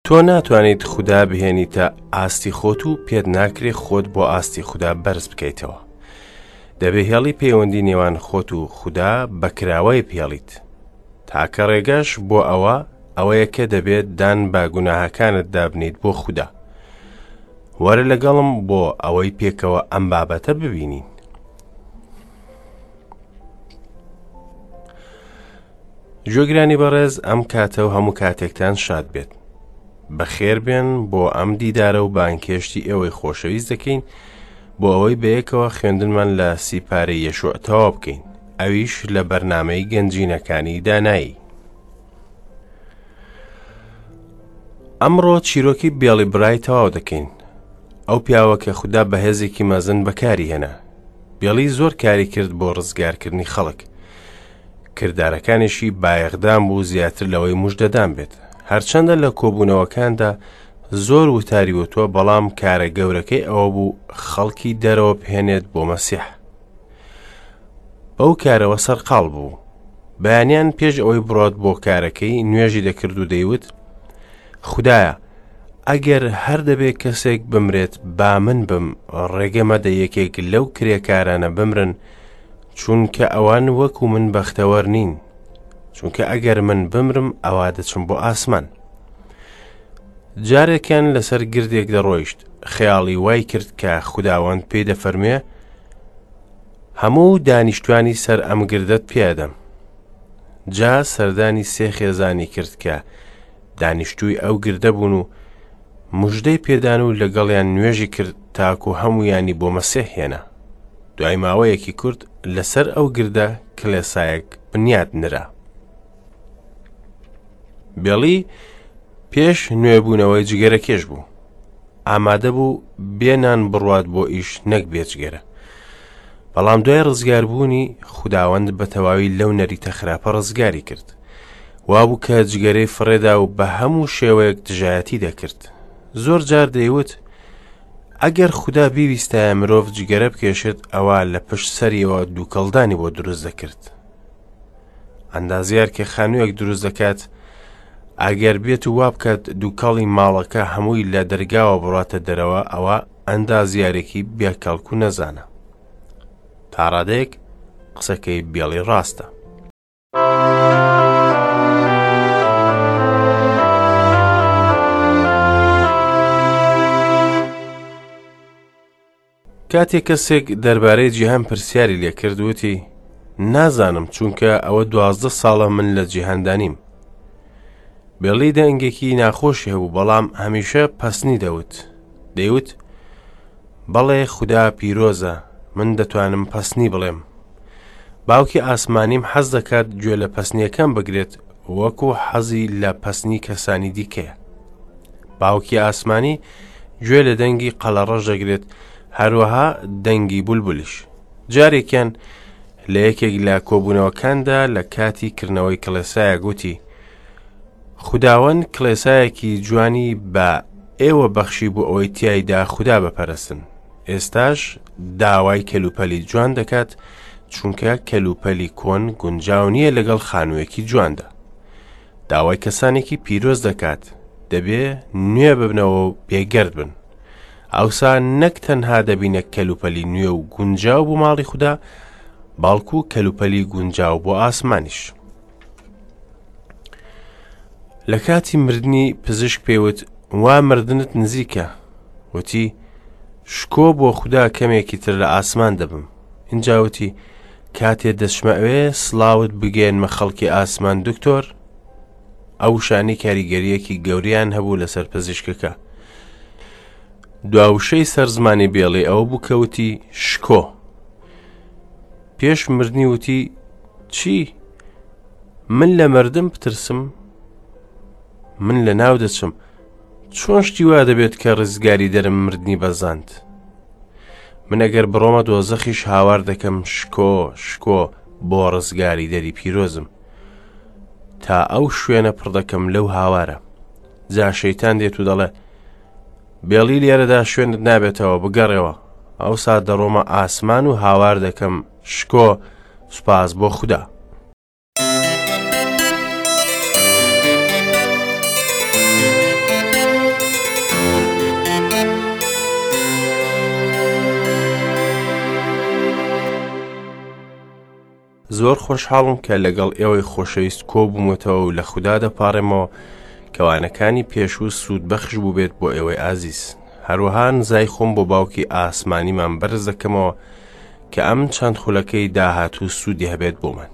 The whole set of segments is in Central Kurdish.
تۆ ناتوانیت خودا بهێنیتە ئاستی خۆت و پێت ناکرێ خۆت بۆ ئاستی خودا بەرز بکەیتەوە. دەبێ هێڵی پەیوەندی نێوان خۆت و خودا بە کراوەی بهێڵیت. تاکە ڕێگەش بۆ ئەوە ئەوەیە کە دەبێت دان بە گوناهەکانت دابنیت بۆ خودا. وەرە لەگەڵم بۆ ئەوەی پێکەوە ئەم بابەتە ببینین. گوێگرانی بەڕێز ئەم کاتە و هەموو کاتێکتان شاد بێت. بەخێر بێن بۆ ئەم دیدارە و بانگهێشتی ئێوەی خۆشەویست دەکەین بۆ ئەوەی بەیەکەوە خوێندنمان لە سیپارەی یەشوع تەواو بکەین ئەویش لە بەرنامەی گەنجینەکانی دانایی. ئەمڕۆ چیرۆکی بێڵی برای تەواو دەکەین ئەو پیاوە کە خودا بەهێزێکی مەزن بەکاری هێنا بێڵی زۆر کاری کرد بۆ ڕزگارکردنی خەڵک کردارەکانیشی بایەخدان بوو زیاتر لەوەی مژدەدان بێت هەرچەندە لە کۆبوونەوەکاندا زۆر وتاری وتووە بەڵام کارە گەورەکەی ئەوە بوو خەڵکی دەرەوە بهێنێت بۆ مەسیح بەو کارەوە سەرقاڵ بوو بەیانیان پێش ئەوەی بڕۆت بۆ کارەکەی نوێژی دەکرد و دەیوت خدایە ئەگەر هەر دەبێ کەسێک بمرێت با من بم ڕێگە مەدە یەکێک لەو کرێکارانە بمرن چونکە ئەوان وەکو من بەختەوەر نین چونکە ئەگەر من بمرم ئەوا دەچم بۆ ئاسمان جارێکیان لەسەر گردێک دەڕۆیشت خەیاڵی وای کرد کە خوداوەند پێی دەفەرموێ هەموو دانیشتوانی سەر ئەم گردەت پێدەم جا سەردانی سێ خێزانی کرد کە دانیشتووی ئەو گردە بوون و مژدەی پێدان و لەگەڵیان نوێژی کرد تاکو هەمویانی بۆ مەسیح هێنا دوای ماوەیەکی کورت لەسەر ئەو گردە کلێسایەک بنیات نرا. بێڵی پێش نوێبوونەوەی جگەرە کێش بوو. ئامادە بوو بێ نان بڕوات بۆ ئیش نەک بێجگەرە. بەڵام دوای ڕزگاربوونی خوداوەند بە تەواوی لەو نەریتە خراپە ڕزگاری کرد. وابوو کە جگەرەی فڕێدا و بە هەموو شێوەیەک دژایەتی دەکرد. زۆر جار دەیوت ئەگەر خودا بیویستایە مرۆڤ جگەرە بکێشێت ئەوا لە پشت سەریەوە دووکەڵدانی بۆ دروست دەکرد. ئەندازیار کە خانوویەک دروست دەکات ئەگەر بێت و وا بکات دووکەڵی ماڵەکە هەمووی لە دەرگاوە بڕاتە دەرەوە ئەوە ئەندازیارێکی بێکەڵک و نەزانە. تا ڕادەیەک قسەکەی بێڵی ڕاستە. کاتێک کەسێک دەربارەی جیهان پرسیاری لێکرد وتی نازانم چونکە ئەوە دوازدە ساڵە من لە جیهاندا نیم بێڵی دەنگێکی ناخۆشی هەبوو بەڵام هەمیشە پەسنی دەوت دەیوت بەڵێ خودا پیرۆزە من دەتوانم پەسنی بڵێم باوکی ئاسمانیم حەز دەکات گوێ لە پەسنیەکەم بگرێت وەکو حەزی لە پەسنی کەسانی دیکەیە باوکی ئاسمانی گوێ لە دەنگی قەلەڕەش دەگرێت هەروەها دەنگی بولبولیش جارێکیان لە یەکێک لە کۆبوونەوەکاندا لە کاتی کردنەوەی کڵێسایە گوتی خوداوەند کڵێسایەکی جوانی بە ئێوە بەخشی بۆ ئەوەی تیایدا خودا بپەرستن ئێستاش داوای کەلوپەلی جوان دەکات چونکە کەلوپەلی کۆن گونجاو نییە لەگەڵ خانوویەکی جواندا داوای کەسانێکی پیرۆز دەکات دەبێ نوێ ببنەوە و بێگەرد بن ئەوسا نەک تەنها دەبینە کەلوپەلی نوێ و گونجاو بۆ ماڵی خودا بەڵکو کەلوپەلی گونجاو بۆ ئاسمانیش لە کاتی مردنی پزیشک پێوت وا مردنت نزیکە وتی شکۆ بۆ خودا کەمێکی تر لە ئاسمان دەبم اینجا وتی کاتێ دەچمە ئەوێ سڵاوت بگەێنمە خەڵکی ئاسمان دکتۆر ئەو شانی کاریگەریەکی گەوریان هەبوو لەسەر پزیشکەکە دواوشەی سەر زمانی بێڵی ئەوە بوو کەوتی شکۆ پێش مردنی وتی چی من لە مردم بترسم من لە ناو دەچم چۆن شتی وا دەبێت کە ڕزگاری دەرم مردنی بەزاند من ئەگەر بڕۆمە دۆزەخیش هاوار دەکەم شکۆ شکۆ بۆ ڕزگاری دەری پیرۆزم تا ئەو شوێنە پڕ دەکەم لەو هاوارە جا شەیتان دێت و دەڵێ بێڵی لێرەدا شوێنت نابێتەوە بگەڕێوە ئەوسا دەڕۆمە ئاسمان و هاوار دەکەم شکۆ سوپاس بۆ خودا. زۆر خۆشحاڵم کە لەگەڵ ئێوەی خۆشەویست کۆبوومەتەوە و لە خودا دەپاڕێمەوە کە وانەکانی پێشوو سوودبەخش بووبێت بۆ ئێوەی ئازیز. هەروەها نزای خۆم بۆ باوکی ئاسمانیمان بەرز دەکەمەوە کە ئەم چەند خولەکەی داهاتوو سوودی هەبێت بۆمان.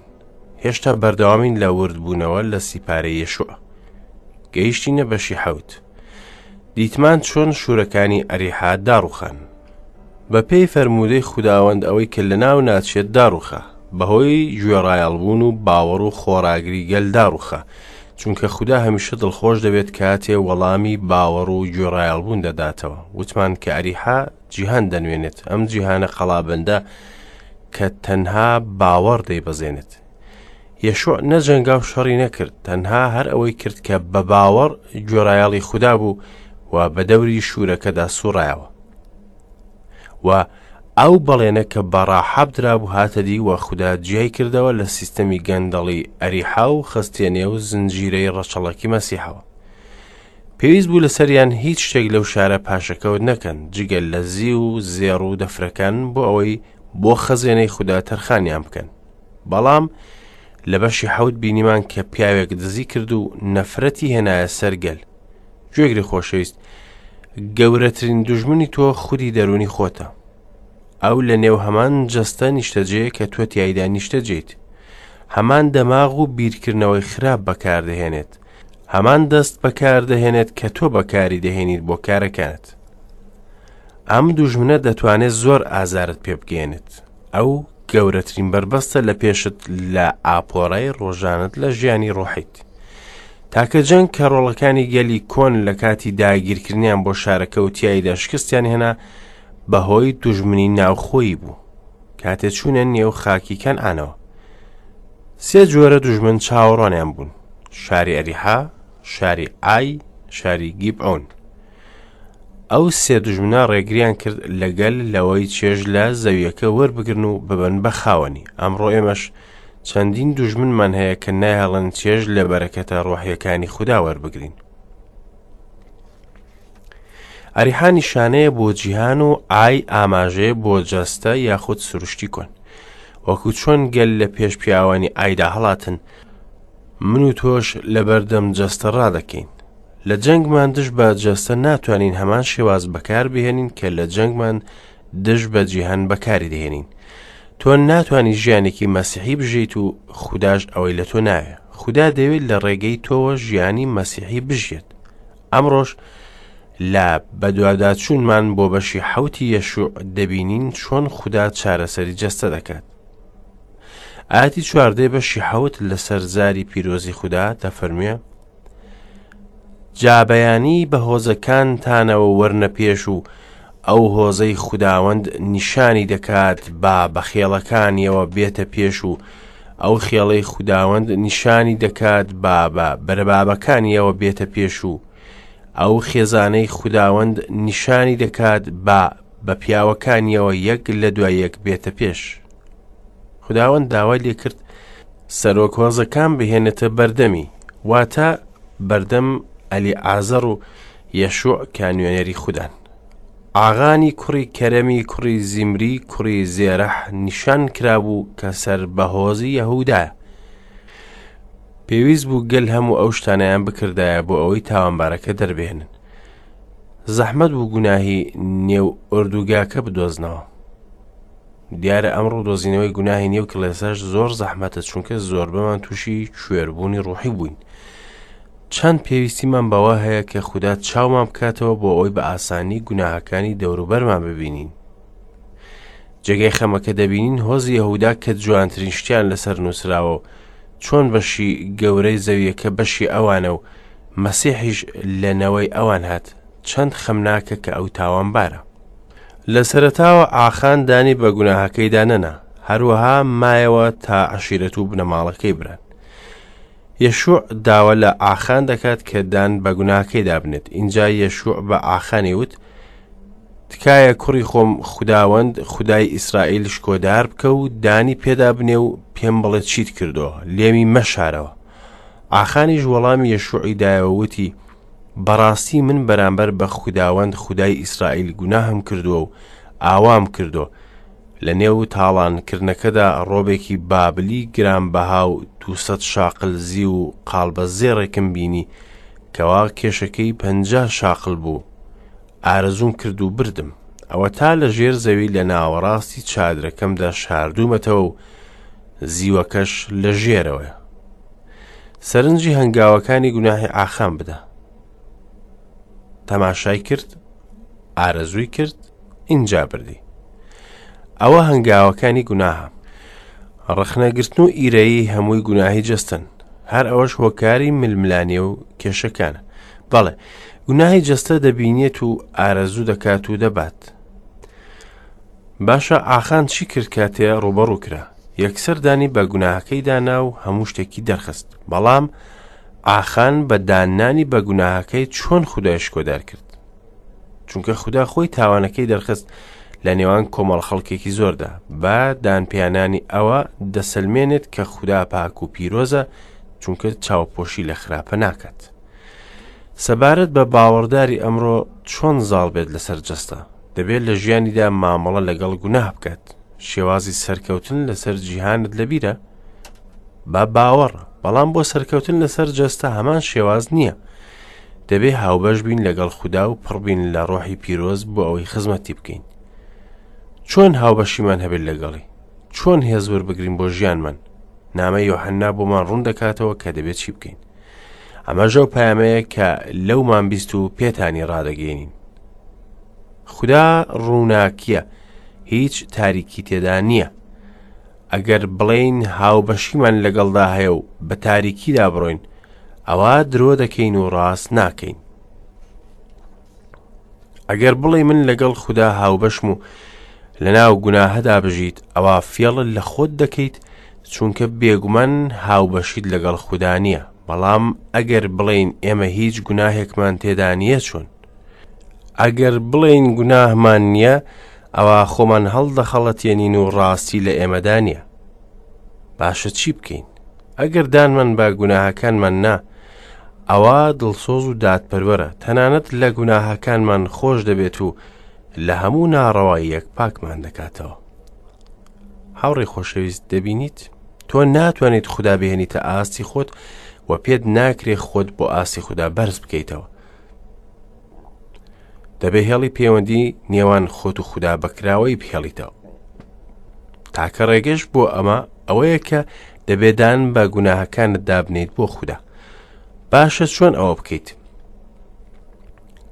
هێشتا بەردەوامین لە وردبوونەوە لە سیپارەی یەشوع. گەیشتینە بەشی حەوت. دیتمان چۆن شوورەکانی ئەریحا داڕوخان. بەپێی فەرموودەی خوداوەند ئەوەی کە لەناو ناچێت داڕوخا، بەهۆی گوێڕایەڵبوون و باوەڕ و خۆڕاگری گەل داڕوخا، چونکە خودا هەمیشە دڵخۆش دەبێت کاتێ وەڵامی باوەڕ و گوێڕایەڵبوون دەداتەوە. وتمان کە ئەریحا جیهان دەنوێنێت، ئەم جیهانە قەڵابەندە کە تەنها باوەڕ دەیبەزێنێت. یەشوع نەجەنگا و شەڕی نەکرد، تەنها هەر ئەوەی کرد کە بە باوەڕ گوێڕایەڵی خودا بوو و بە دەوری شوورەکەدا سوڕایەوە. و ئەو بەڵێنە کە بە ڕاحاب درابوو هاتە دی و خودا جیای کردەوە لە سیستەمی گەندەڵی ئەریحا و خستیە نێو زنجیرەی ڕەچەڵەکی مەسیحەوە. پێویست بوو لەسەریان هیچ شتێک لەو شارە پاشەکەوت نەکەن جگە لە زیو و زێڕ و دەفرەکان بۆ ئەوەی بۆ خەزێنەی خودا تەرخانیان بکەن. بەڵام لە بەشی حەوت بینیمان کە پیاوێک دزی کرد و نەفرەتی هێنایە سەر گەل. گوێگری خۆشەویست، گەورەترین دوژمنی تۆ خودی دەروونی خۆتە. ئەو لە نێو هەمان جەستە نیشتەجێیە کە تۆ تیایدا نیشتەجێیت. هەمان دەماغ و بیرکردنەوەی خراپ بەکاردەهێنێت. هەمان دەست بەکاردەهێنێت کە تۆ بەکاری دەهێنیت بۆ کارەکانت. ئەم دوژمنە دەتوانێت زۆر ئازارت پێ بگەیەنێت. ئەو گەورەترین بەربەستە لە پێشت لە ئاپۆرای ڕۆژانت لە ژیانی ڕۆحیت. تاکە جەنگ کە ڕۆڵەکانی گەلی کۆن لە کاتی داگیرکردنیان بۆ شارەکە و تیایدا شکستیان هێنا بەهۆی دوژمنی ناوخۆیی بوو کاتێ چوونە نێو خاکی کەنعانەوە. سێ جۆرە دوژمن چاوەڕوانیان بوون، شاری ئەریحا، شاری ئای، شاری گیبعۆن. ئەو سێ دوژمنە ڕێگریان کرد لە گەل لەوەی چێژ لە زەویەکە وەربگرن و ببن بە خاوەنی. ئەمڕۆ ئێمەش چەندین دوژمنمان هەیە کە نایەڵن چێژ لە بەرەکەتە ڕۆحیەکانی خودا وەربگرین. ئەریحا نیشانەیە بۆ جیهان و ئای ئاماژەیە بۆ جەستە یاخود سروشتی کۆن. وەکو چۆن گەل لە پێش پیاوانی ئایدا هەڵاتن، من و تۆش لەبەردەم جەستە ڕادەکەین. لە جەنگمان دژ بە جەستە ناتوانین هەمان شێواز بەکار بهێنین کە لە جەنگمان دژ بە جیهان بەکاری دەهێنین. تۆ ناتوانی ژیانێکی مەسیحی بژیت و خوداش ئەوەی لە تۆ ناوێ. خودا دەیەوێت لە ڕێگەی تۆوە ژیانی مەسیحی بژیێت. ئەمڕۆش لە بەدواداچوونمان بۆ بەشی حەوتی یەشوع دەبینین چۆن خودا چارەسەری جەستە دەکات. ئاەتی چواردەی بەشی حەوت لەسەر زاری پیرۆزی خودا دەفەرموێ جا بەیانی بە هۆزەکانتانەوە وەرنە پێش و ئەو هۆزەی خوداوەند نیشانی دەکات با بە خێڵەکانیەوە بێتە پێش و ئەو خێڵەی خوداوەند نیشانی دەکات با بە بەرەبابەکانیەوە بێتە پێش و ئەو خێزانەی خوداوەند نیشانی دەکات با بە پیاوەکانیەوە یەک لە دوای یەک بێتە پێش. خوداوەند داوای لێکرد سەرۆک هۆزەکان بهێنێتە بەردەمی، واتە بەردەم ئەلیعازەر و یەشوع کە نوێنەری خودان. ئاغانی کوڕی کەرەمی کوڕی زیمری کوڕی زێرەح نیشان کرابوو کە سەر بە هۆزی یەهودایە. پێویست بوو گەل هەموو ئەو شتانەیان بکردایە بۆ ئەوەی تاوانبارەکە دەربهێنن. زەحمەت بوو گوناهی نێو ئۆردوگاکە بدۆزنەوە. دیارە ئەمڕۆ دۆزینەوەی گوناهی نێو کڵێساش زۆر زەحمەتە چونکە زۆربەمان تووشی کوێربوونی ڕوحی بووین. چەند پێویستیمان بەوە هەیە کە خودا چاومان بکاتەوە بۆ ئەوەی بە ئاسانی گوناهەکانی دەوروبەرمان ببینین. جێگەی خەمەکە دەبینین هۆزی یەهودا کە جوانترین شتیان لەسەر نووسراوە و چۆن بەشی گەورەی زەویەکە بەشی ئەوانە و مەسیحیش لە نەوەی ئەوان هات چەند خەمناکە کە ئەو تاوانبارە. لە سەرەتاوە ئاخان دانی بە گوناهەکەیدا نەنا، هەروەها مایەوە تا عەشیرەت و بنەماڵەکەی بران. یەشوع داوا لە ئاخان دەکات کە دان بە گوناهەکەیدا بنێت. ئینجا یەشوع بە ئاخانی وت، تکایە کوڕی خۆم خوداوەند خودای ئیسرائیل شکۆدار بکە و دانی پێدا بنێ و پێم بڵێ چیت کردووە، لێمی مەشارەوە. ئاخانیش وەڵامی یەشوعی دایەوە وتی، بەڕاستی من بەرامبەر بە خوداوەند خودای ئیسرائیل گوناهم کردووە و ئاوام کردووە. لە نێو تاڵانکردنەکەدا ڕۆبێکی بابلی گرانبەها و 200 شاقل زیو و قاڵبە زێڕێکم بینی کەوا کێشەکەی 50 شاقل بوو. ئارەزووم کرد و بردم. ئەوەتا لە ژێر زەوی لە ناوەڕاستی چادرەکەمدا شاردوومەتەوە و زیوەکەش لە ژێرەوەیە. سەرنجی هەنگاوەکانی گوناهی ئاخان بدە. تەماشای کرد، ئارەزووی کرد، ئینجا بردی. ئەوە هەنگاوەکانی گوناهە. ڕەخنەگرتن و ئیرەیی هەمووی گوناهی جەستەن. هەر ئەوەش هۆکاری ململانێ و کێشەکانە. بەڵێ، گوناهی جەستە دەبینێت و ئارەزوو دەکات و دەبات. باشە ئاخان چی کرد کاتێ ڕووبەڕوو کرا؟ یەکسەر دانی بە گوناهەکەی دانا و هەموو شتێکی دەرخست. بەڵام ئاخان بە داننانی بە گوناهەکەی چۆن خودای شکۆدار کرد؟ چونکە خودا خۆی تاوانەکەی دەرخست لە نێوان کۆمەڵ خەڵکێکی زۆردا بە دانپیانانی ئەوە دەسەلمێنێت کە خودا پاک و پیرۆزە چونکە چاوپۆشی لە خراپە ناکات. سەبارەت بە باوەڕداری ئەمڕۆ چۆن زاڵ بێت لەسەر جەستە دەبێت لە ژیانیدا مامەڵە لەگەڵ گوناه بکات شێوازی سەرکەوتن لەسەر جیهانت لەبیرە بە باوەڕ بەڵام بۆ سەرکەوتن لەسەر جەستە هەمان شێواز نییە دەبێ هاوبەش بین لەگەڵ خودا و پڕبین لە ڕۆحی پیرۆز بۆ ئەوەی خزمەتی بکەین چۆن هاوبەشیمان هەبێت لەگەڵی چۆن هێز وەربگرین بۆ ژیانمان نامە یۆحەننا بۆمان ڕوون دەکاتەوە کە دەبێت چی بکەین ئەمەش ئەو پەیامەیە کە لەومان بیست و پێتانی ڕادەگەێنین خودا ڕووناکیە هیچ تاریکی تێدا نییە ئەگەر بڵێین هاوبەشیمان لەگەڵدا هەیە و بە تاریکیدا بڕۆین ئەوە درۆ دەکەین و ڕاست ناکەین ئەگەر بڵێ من لەگەڵ خودا هاوبەشم و لەناو گوناهەدا بژیت ئەوە فێڵ لە خۆت دەکەیت چونکە بێگومان هاوبەشیت لەگەڵ خودا نییە بەڵام ئەگەر بڵێین ئێمە هیچ گوناهێکمان تێدا نییە چۆن ئەگەر بڵێین گوناهمان نییە ئەوە خۆمان هەڵدەخەڵەتێنین و ڕاستی لە ئێمەدا نییە باشە چی بکەین ئەگەر دانمان بە گوناهەکانمان نا ئەوا دڵسۆز و دادپەروەرە تەنانەت لە گوناهەکانمان خۆش دەبێت و لە هەموو ناڕەواییەک پاکمان دەکاتەوە هاوڕێ خۆشەویست دەبینیت تۆ ناتوانیت خودا بهێنیتە ئاستی خۆت و پێت ناکرێ خۆت بۆ ئاستی خودا بەرز بکەیتەوە دەبێ هێڵی پەیوەندی نێوان خۆت و خودا بەکراوەی بهێڵیتەوە تاکە ڕێگەش بۆ ئەمە ئەوەیە کە دەبێدان بە گوناهەکانت دابنیت بۆ خودا باشە چۆن ئەوە بکەیت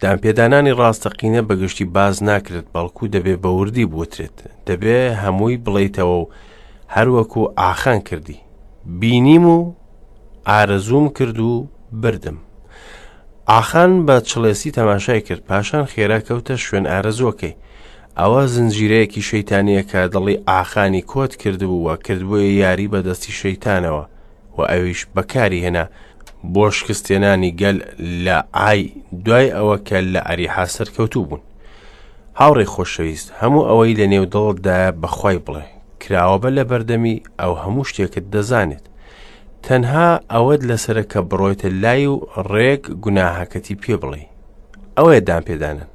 دانپێدانانی ڕاستەقینە بەگشتی باز ناکرێت بەڵکو دەبێ بە وردی بوترێت دەبێ هەمووی بڵیتەوە و هەروەکو ئاخان کردی بینیم و ئارەزووم کرد و بردم. ئاخان بە چڵێسی تەماشای کرد، پاشان خێرا کەوتە شوێن ئارەزووەکەی. ئەوە زنجیرەیەکی شەیتانییە کە دڵی ئاخانی کۆت کردبوو و کردبوویە یاری بە دەستی شەیتانەوە و ئەویش بەکاری هێنا بۆ شکستێنانی گەل لە عای دوای ئەوە کە لە ئەریحا سەرکەوتوو بوون. هاوڕێی خۆشەویست، هەموو ئەوەی لە نێو دڵتدایە بە خوای بڵێ. کراوە بە لە بەردەمی ئەو هەموو شتێکت دەزانێت. تەنها ئەوەت لەسرە کە بڕۆیتە لای و ڕێک گوناهەکەتی پێ بڵێ ئەوەیە دان پێدانن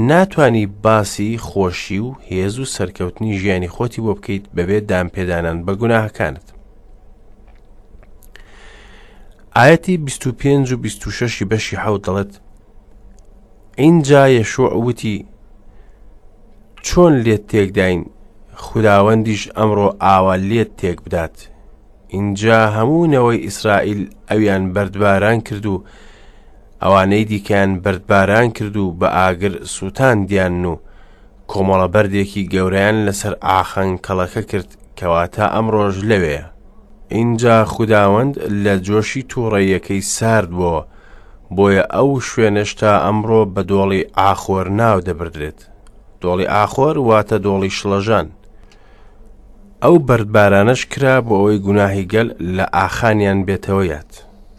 ناتانی باسی خۆشی و هێز و سەرکەوتنی ژیانی خۆتی بۆ بکەیت بەبێ دان پێدانان بە گوناهەکانت ئاەتی 25 و 26 بەشی حەوت دەڵێت ئینجا یەشوع وتی چۆن لێت تێکداین خوداوەندیش ئەمڕۆ ئاوا لێت تێک بدات ئینجا هەموو نەوەی ئیسرائیل ئەویان بەردباران کرد و ئەوانەی دیکەیان بەردباران کرد و بە ئاگر سووتاندیان و کۆمەڵە بەردێکی گەورەیان لەسەر ئاخان کەڵەکە کرد کەواتە ئەمڕۆژ لەوێیە ئینجا خوداوەند لە جۆشی تووڕەیەکەی سارد بۆوە بۆیە ئەو شوێنەش تا ئەمڕۆ بە دۆڵی ئاخۆر ناو دەبردرێت. دۆڵی ئاخۆر واتە دۆڵی شڵەژان. ئەو بەردبارانەش کرا بۆ ئەوەی گوناهی گەل لە ئاخانیان بێتەوە یاد.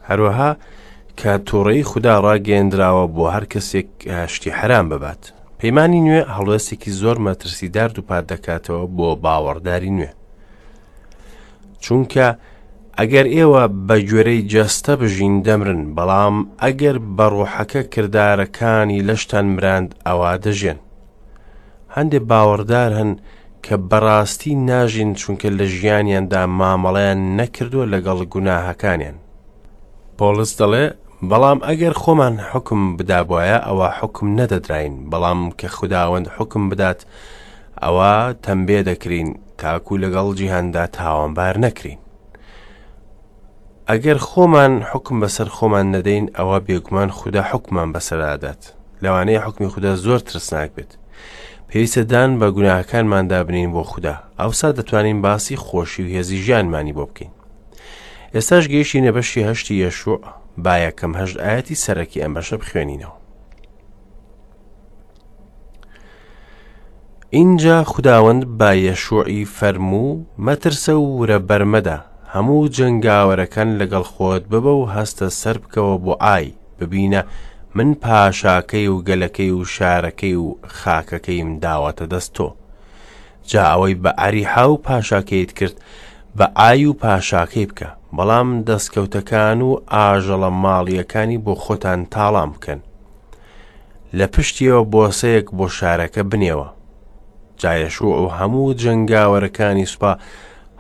هەروەها کە تووڕەیی خودا ڕاگەیەندراوە بۆ هەر کەسێک شتی حەرام ببات. پەیمانی نوێ هەڵوێستێکی زۆر مەترسیدار دووپات دەکاتەوە بۆ باوەڕداری نوێ. چونکە ئەگەر ئێوە بە گوێرەی جەستە بژین دەمرن، بەڵام ئەگەر بە ڕۆحەکە کردارەکانی لەشتان مراند ئەوا دەژێن. هەندێ باوەڕدار هەن کە بەڕاستی ناژین چونکە لە ژیانیاندا مامەڵەیان نەکردووە لەگەڵ گوناهەکانیان. پۆڵس دەڵێ، بەڵام ئەگەر خۆمان حوکم بدابوایە ئەوا حوکم نەدەدراین، بەڵام کە خوداوەند حوکم بدات ئەوا تەمبێ دەکرین تاکو لەگەڵ جیهاندا تاوانبار نەکرین. ئەگەر خۆمان حوکم بەسەر خۆمان نەدەین ئەوا بێگومان خودا حوکممان بەسەردا دەدات. لەوانەیە حوکمی خودا زۆر ترسناک بێت. پێویستە دان بە گوناهەکانماندا بنین بۆ خودا. ئەوسا دەتوانین باسی خۆشی و هێزی ژیانمانی بۆ بکەین. ئێستاش گەیشتینە بەشی هەشتی یەشوع، با یەکەم هەشت ئایەتی سەرەکی ئەم بەشە بخوێنینەوە. ئینجا خوداوەند بە یەشوعی فەرموو، مەترسە و ورە بەرمەدە، هەموو جەنگاوەرەکان لەگەڵ خۆت ببە و هەستە سەربکەوە بۆ ئای، ببینە من پاشاکەی و گەلەکەی و شارەکەی و خاکەکەیم داوەتە دەست تۆ. جا ئەوەی بە ئەریحا و پاشاکەیت کرد، بە ئای و پاشاکەی بکە، بەڵام دەستکەوتەکان و ئاژەڵە ماڵییەکانی بۆ خۆتان تاڵان بکەن. لە پشتیەوە بۆسەیەک بۆ شارەکە بنێوە. جا یەشوع و هەموو جەنگاوەرەکانی سوپا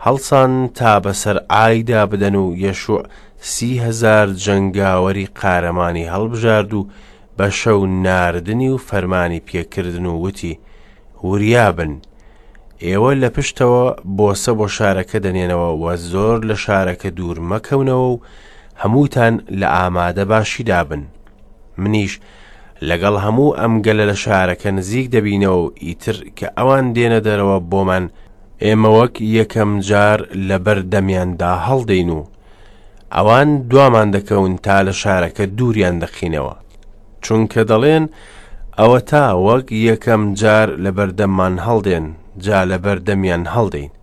هەڵسان تا بەسەر ئایدا بدەن و یەشوع 30,000 جەنگاوەری قارەمانی هەڵبژارد و بە شەو ناردنی و فەرمانی پێکردن و وتی، وریا بن، ئێوە لە پشتەوە بۆسە بۆ شارەکە دەنێنەوە و زۆر لە شارەکە دوور مەکەونەوە و هەمووتان لە ئامادە باشیدا بن. منیش لەگەڵ هەموو ئەم گەلە لە شارەکە نزیک دەبینەوە و ئیتر کە ئەوان دێنە دەرەوە بۆمان، ئێمە وەک یەکەم جار لەبەر دەمیاندا هەڵدێین و ئەوان دوامان دەکەون تا لە شارەکە دووریان دەخینەوە. چونکە دەڵێن، ئەوەتا وەک یەکەم جار لەبەردەممان هەڵدێن، جا لەبەردەمیان هەڵدێین.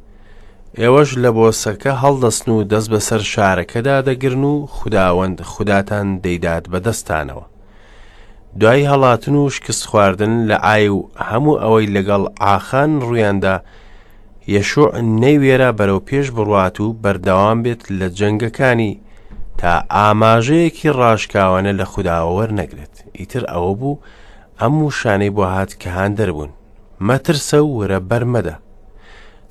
ئێوەش لە بۆسەکە هەڵدەستن و دەست بەسەر شارەکەدا دەگرن و خوداوەند خوداتان دەیدات بە دەستتانەوە. دوای هەڵاتن و شکست خواردن لە عای و هەموو ئەوەی لەگەڵ عاخان ڕوویاندا، یەشوع نەیوێرا بەرەو پێش بڕوات و بەردەوام بێت لە جەنگەکانی تا ئاماژەیەکی ڕاشکاوانە لە خوداوە وەرنەگرێت. ئیتر ئەوە بوو ئەم وشانەی بۆ هات کە هاندەر بوون، مەترسە و ورە بەرمەدە.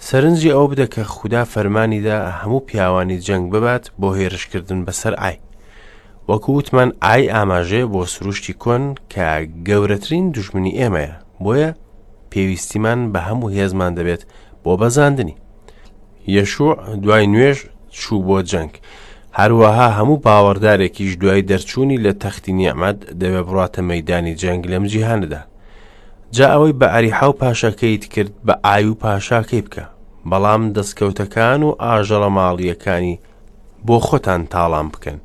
سەرنجی ئەوە بدە کە خودا فەرمانی دا هەموو پیاوانی جەنگ ببات بۆ هێرشکردن بەسەر ئای. وەکو وتمان ئای ئاماژەیە بۆ سروشتی کۆن کە گەورەترین دوژمنی ئێمەیە، بۆیە پێویستیمان بە هەموو هێزمان دەبێت بۆ بەزاندنی. یەشوع دوای نوێژ چوو بۆ جەنگ. هەروەها هەموو باوەڕدارێکیش دوای دەرچوونی لە تەختی نیعمەت دەبێ بڕاتە مەیدانی جەنگ لەم جیهانەدا. جا ئەوەی بە ئەریحا و پاشاکەیت کرد بە ئای و پاشاکەی بکە، بەڵام دەستکەوتەکان و ئاژەڵە ماڵییەکانی بۆ خۆتان تاڵان بکەن.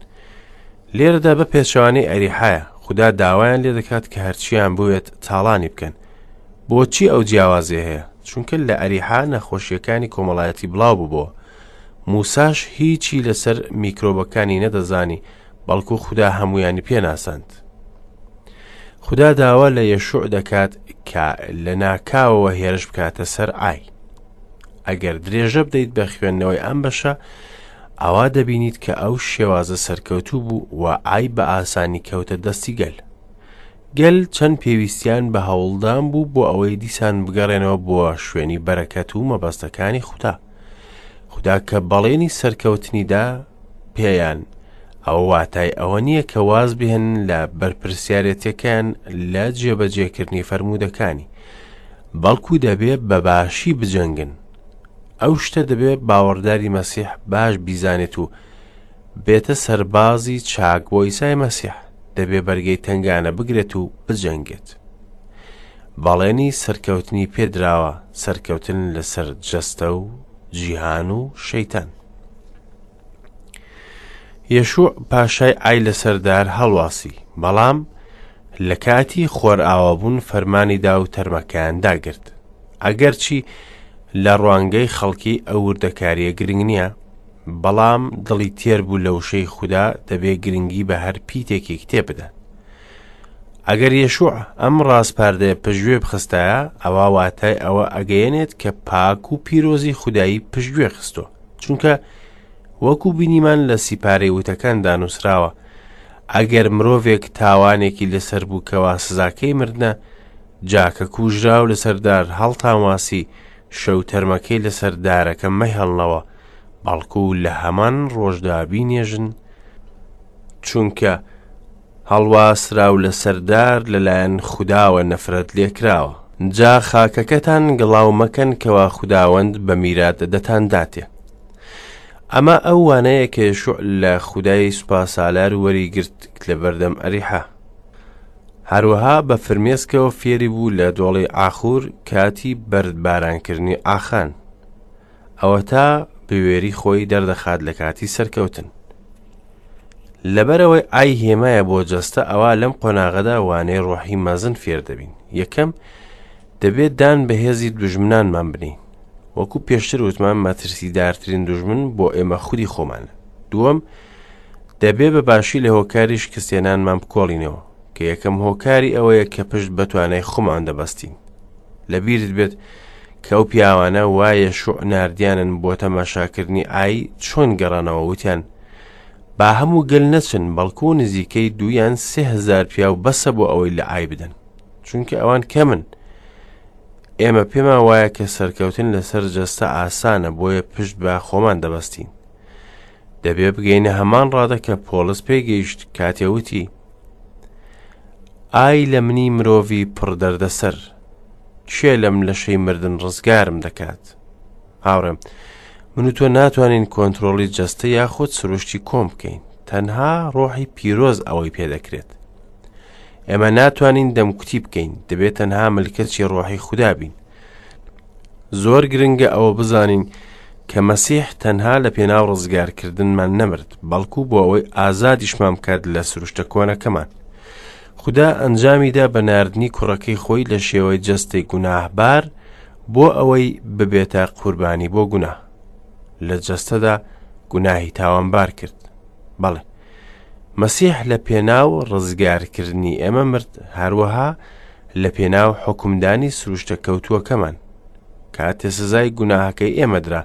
لێرەدا بە پێچەوانەی ئەریحایە، خودا داوایان لێ دەکات کە هەرچیان بوێت تاڵانی بکەن. بۆچی ئەو جیاوازیە هەیە؟ چونکە لە ئەریحا نەخۆشیەکانی کۆمەڵایەتی بڵاو ببۆوە. موساش هیچی لەسەر میکرۆبەکانی نەدەزانی، بەڵکو خودا هەمویانی پێناساند. خودا داوا لە یەشوع دەکات کە لە ناکاوەوە هێرش بکاتە سەر ئای. ئەگەر درێژە بدەیت بە خوێندنەوەی ئەم بەشە، ئەوا دەبینیت کە ئەو شێوازە سەرکەوتوو بوو و ئای بە ئاسانی کەوتە دەستی گەل. گەل چەند پێویستیان بە هەوڵدان بوو بۆ ئەوەی دیسان بگەڕێنەوە بۆ شوێنی بەرەکەت و مەبەستەکانی خودا. خودا کە بەڵێنی سەرکەوتنی دا پێیان، ئەوە واتای ئەوە نییە کە واز بهێنن لە بەرپرسیارێتیەکەیان لە جێبەجێکردنی فەرموودەکانی، بەڵکو دەبێ بە باشی بجەنگن. ئەو شتە دەبێ باوەڕداری مەسیح باش بیزانێت و بێتە سەربازی چاک بۆ ئیسای مەسیح، دەبێ بەرگەی تەنگانە بگرێت و بجەنگێت. بەڵێنی سەرکەوتنی پێدراوە، سەرکەوتن لەسەر جەستە و جیهان و شەیتان. یەشوع پاشای ئای لەسەر دار هەڵواسی، بەڵام لە کاتی خۆرئاوابوون فەرمانی دا و تەرمەکەیان داگرت. ئەگەرچی لە ڕوانگەی خەڵکی ئەو وردەکارییە گرنگ نییە، بەڵام دڵی تێر بوو لە وشەی خودا دەبێ گرنگی بە هەر پیتێکی کتێب بدات. ئەگەر یەشوع ئەم ڕاسپاردەیە پشتگوێ بخستایە، ئەوا واتای ئەوە ئەگەیەنێت کە پاک و پیرۆزی خودایی پشتگوێ خستووە. چونکە وەکو بینیمان لە سیپارەی وتەکاندا نووسراوە، ئەگەر مرۆڤێک تاوانێکی لەسەر بوو کەوا سزاکەی مردنە، جا کە کوژراو لەسەر دار هەڵتانواسی، شەو تەرمەکەی لەسەر دارەکە مەهێڵنەوە، بەڵکو لە هەمان ڕۆژدا بینێژن، چونکە هەڵواسراو لەسەر دار لەلایەن خوداوە نەفرەت لێکراوە. جا خاکەکەتان گڵاو مەکەن کەوا خوداوەند بە میرات دەتانداتێ. ئەمە ئەو وانەیە کە یەشوع لە خودای سوپاسالار وەریگرت لەبەردەم ئەریحا. هەروەها بە فرمێسکەوە فێری بوو لە دۆڵی ئاخور کاتی بەردبارانکردنی ئاخان. ئەوەتا بوێری خۆی دەردەخات لە کاتی سەرکەوتن. لەبەرئەوەی ئای هێمایە بۆ جەستە ئەوا لەم قۆناغەدا وانەی ڕۆحی مەزن فێر دەبین. یەکەم، دەبێت دان بە هێزی دوژمنانمان بنێین. وەکو پێشتر وتمان مەترسیدارترین دوژمن بۆ ئێمە خودی خۆمانە. دووەم، دەبێ بە باشی لە هۆکاری شکستهێنانمان بکۆڵینەوە، کە یەکەم هۆکاری ئەوەیە کە پشت بە توانای خۆمان دەبەستین. لەبیرت بێت کە ئەو پیاوانە وا یەشوع ناردیانن بۆ تەماشاکردنی ئای چۆن گەڕانەوە وتیان با هەموو گەل نەچن بەڵکو نزیکەی دوو یان 3000 پیاو بەسە بۆ ئەوەی لە ئای بدەن چونکە ئەوان کەمن ئێمە پێمان وایە کە سەرکەوتن لەسەر جەستە ئاسانە بۆیە پشت بە خۆمان دەبەستین دەبێ بگەینە هەمان ڕادە کە پۆڵس پێگەیشت کاتێ وتی ئای لە منی مرۆڤی پڕ دەردەسەر کێ لەم لەشەی مردن ڕزگارم دەکات هاوڕێم من و تۆ ناتوانین کۆنترۆڵی جەستە یاخود سروشتی کۆم بکەین تەنها ڕۆحی پیرۆز ئەوەی پێدەکرێت ئێمە ناتوانین دەمکوتی بکەین دەبێت تەنها ملکەچی ڕۆحی خودا بین زۆر گرنگە ئەوە بزانین کە مەسیح تەنها لە پێناو ڕزگارکردنمان نەمرد بەڵکو بۆ ئەوەی ئازادیشمان بکات لە سروشتە کۆنەکەمان خودا ئەنجامیدا بە ناردنی کوڕەکەی خۆی لە شێوەی جەستەی گوناهبار بۆ ئەوەی ببێتە قوربانی بۆ گوناه لە جەستەدا گوناهی تاوانبار کرد بەڵێ مەسیح لە پێناو ڕزگارکردنی ئێمە مرد هەروەها لە پێناو حوکمدانی سروشتە کەوتووەکەمان کاتێ سزای گوناهەکەی ئێمە درا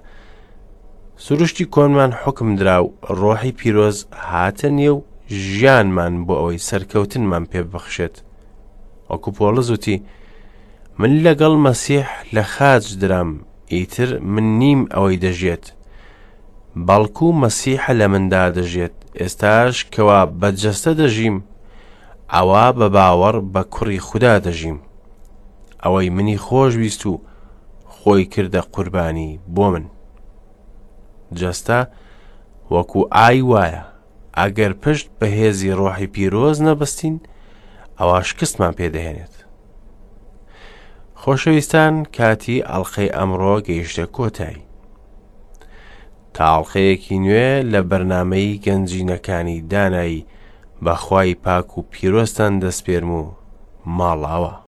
سروشتی کۆنمان حوکم درا و ڕۆحی پیرۆز هاتە نێو ژیانمان بۆ ئەوەی سەرکەوتنمان پێ ببەخشێت وەکو پۆڵس وتی من لەگەڵ مەسیح لە خاچ درام ئیتر من نیم ئەوەی دەژێت بەڵکو مەسیحە لە مندا دەژێت ئێستاش کەوا بە جەستە دەژیم ئەوا بە باوەڕ بە کوڕی خودا دەژیم ئەوەی منی خۆش ویست و خۆی کردە قوربانی بۆ من جەستە وەکو ئای وایە ئەگەر پشت بە هێزی ڕۆحی پیرۆز نەبەستین ئەوا شکستمان پێدەهێنێت خۆشەویستان کاتی ئەڵلقەی ئەمڕۆ گەیشتە کۆتایی تا ئەڵلقەیەکی نوێ لە بەرنمەی گەنجینەکانی دانایی بەخوای پاک و پیرۆزتان دەسپێرم و ماڵاوە.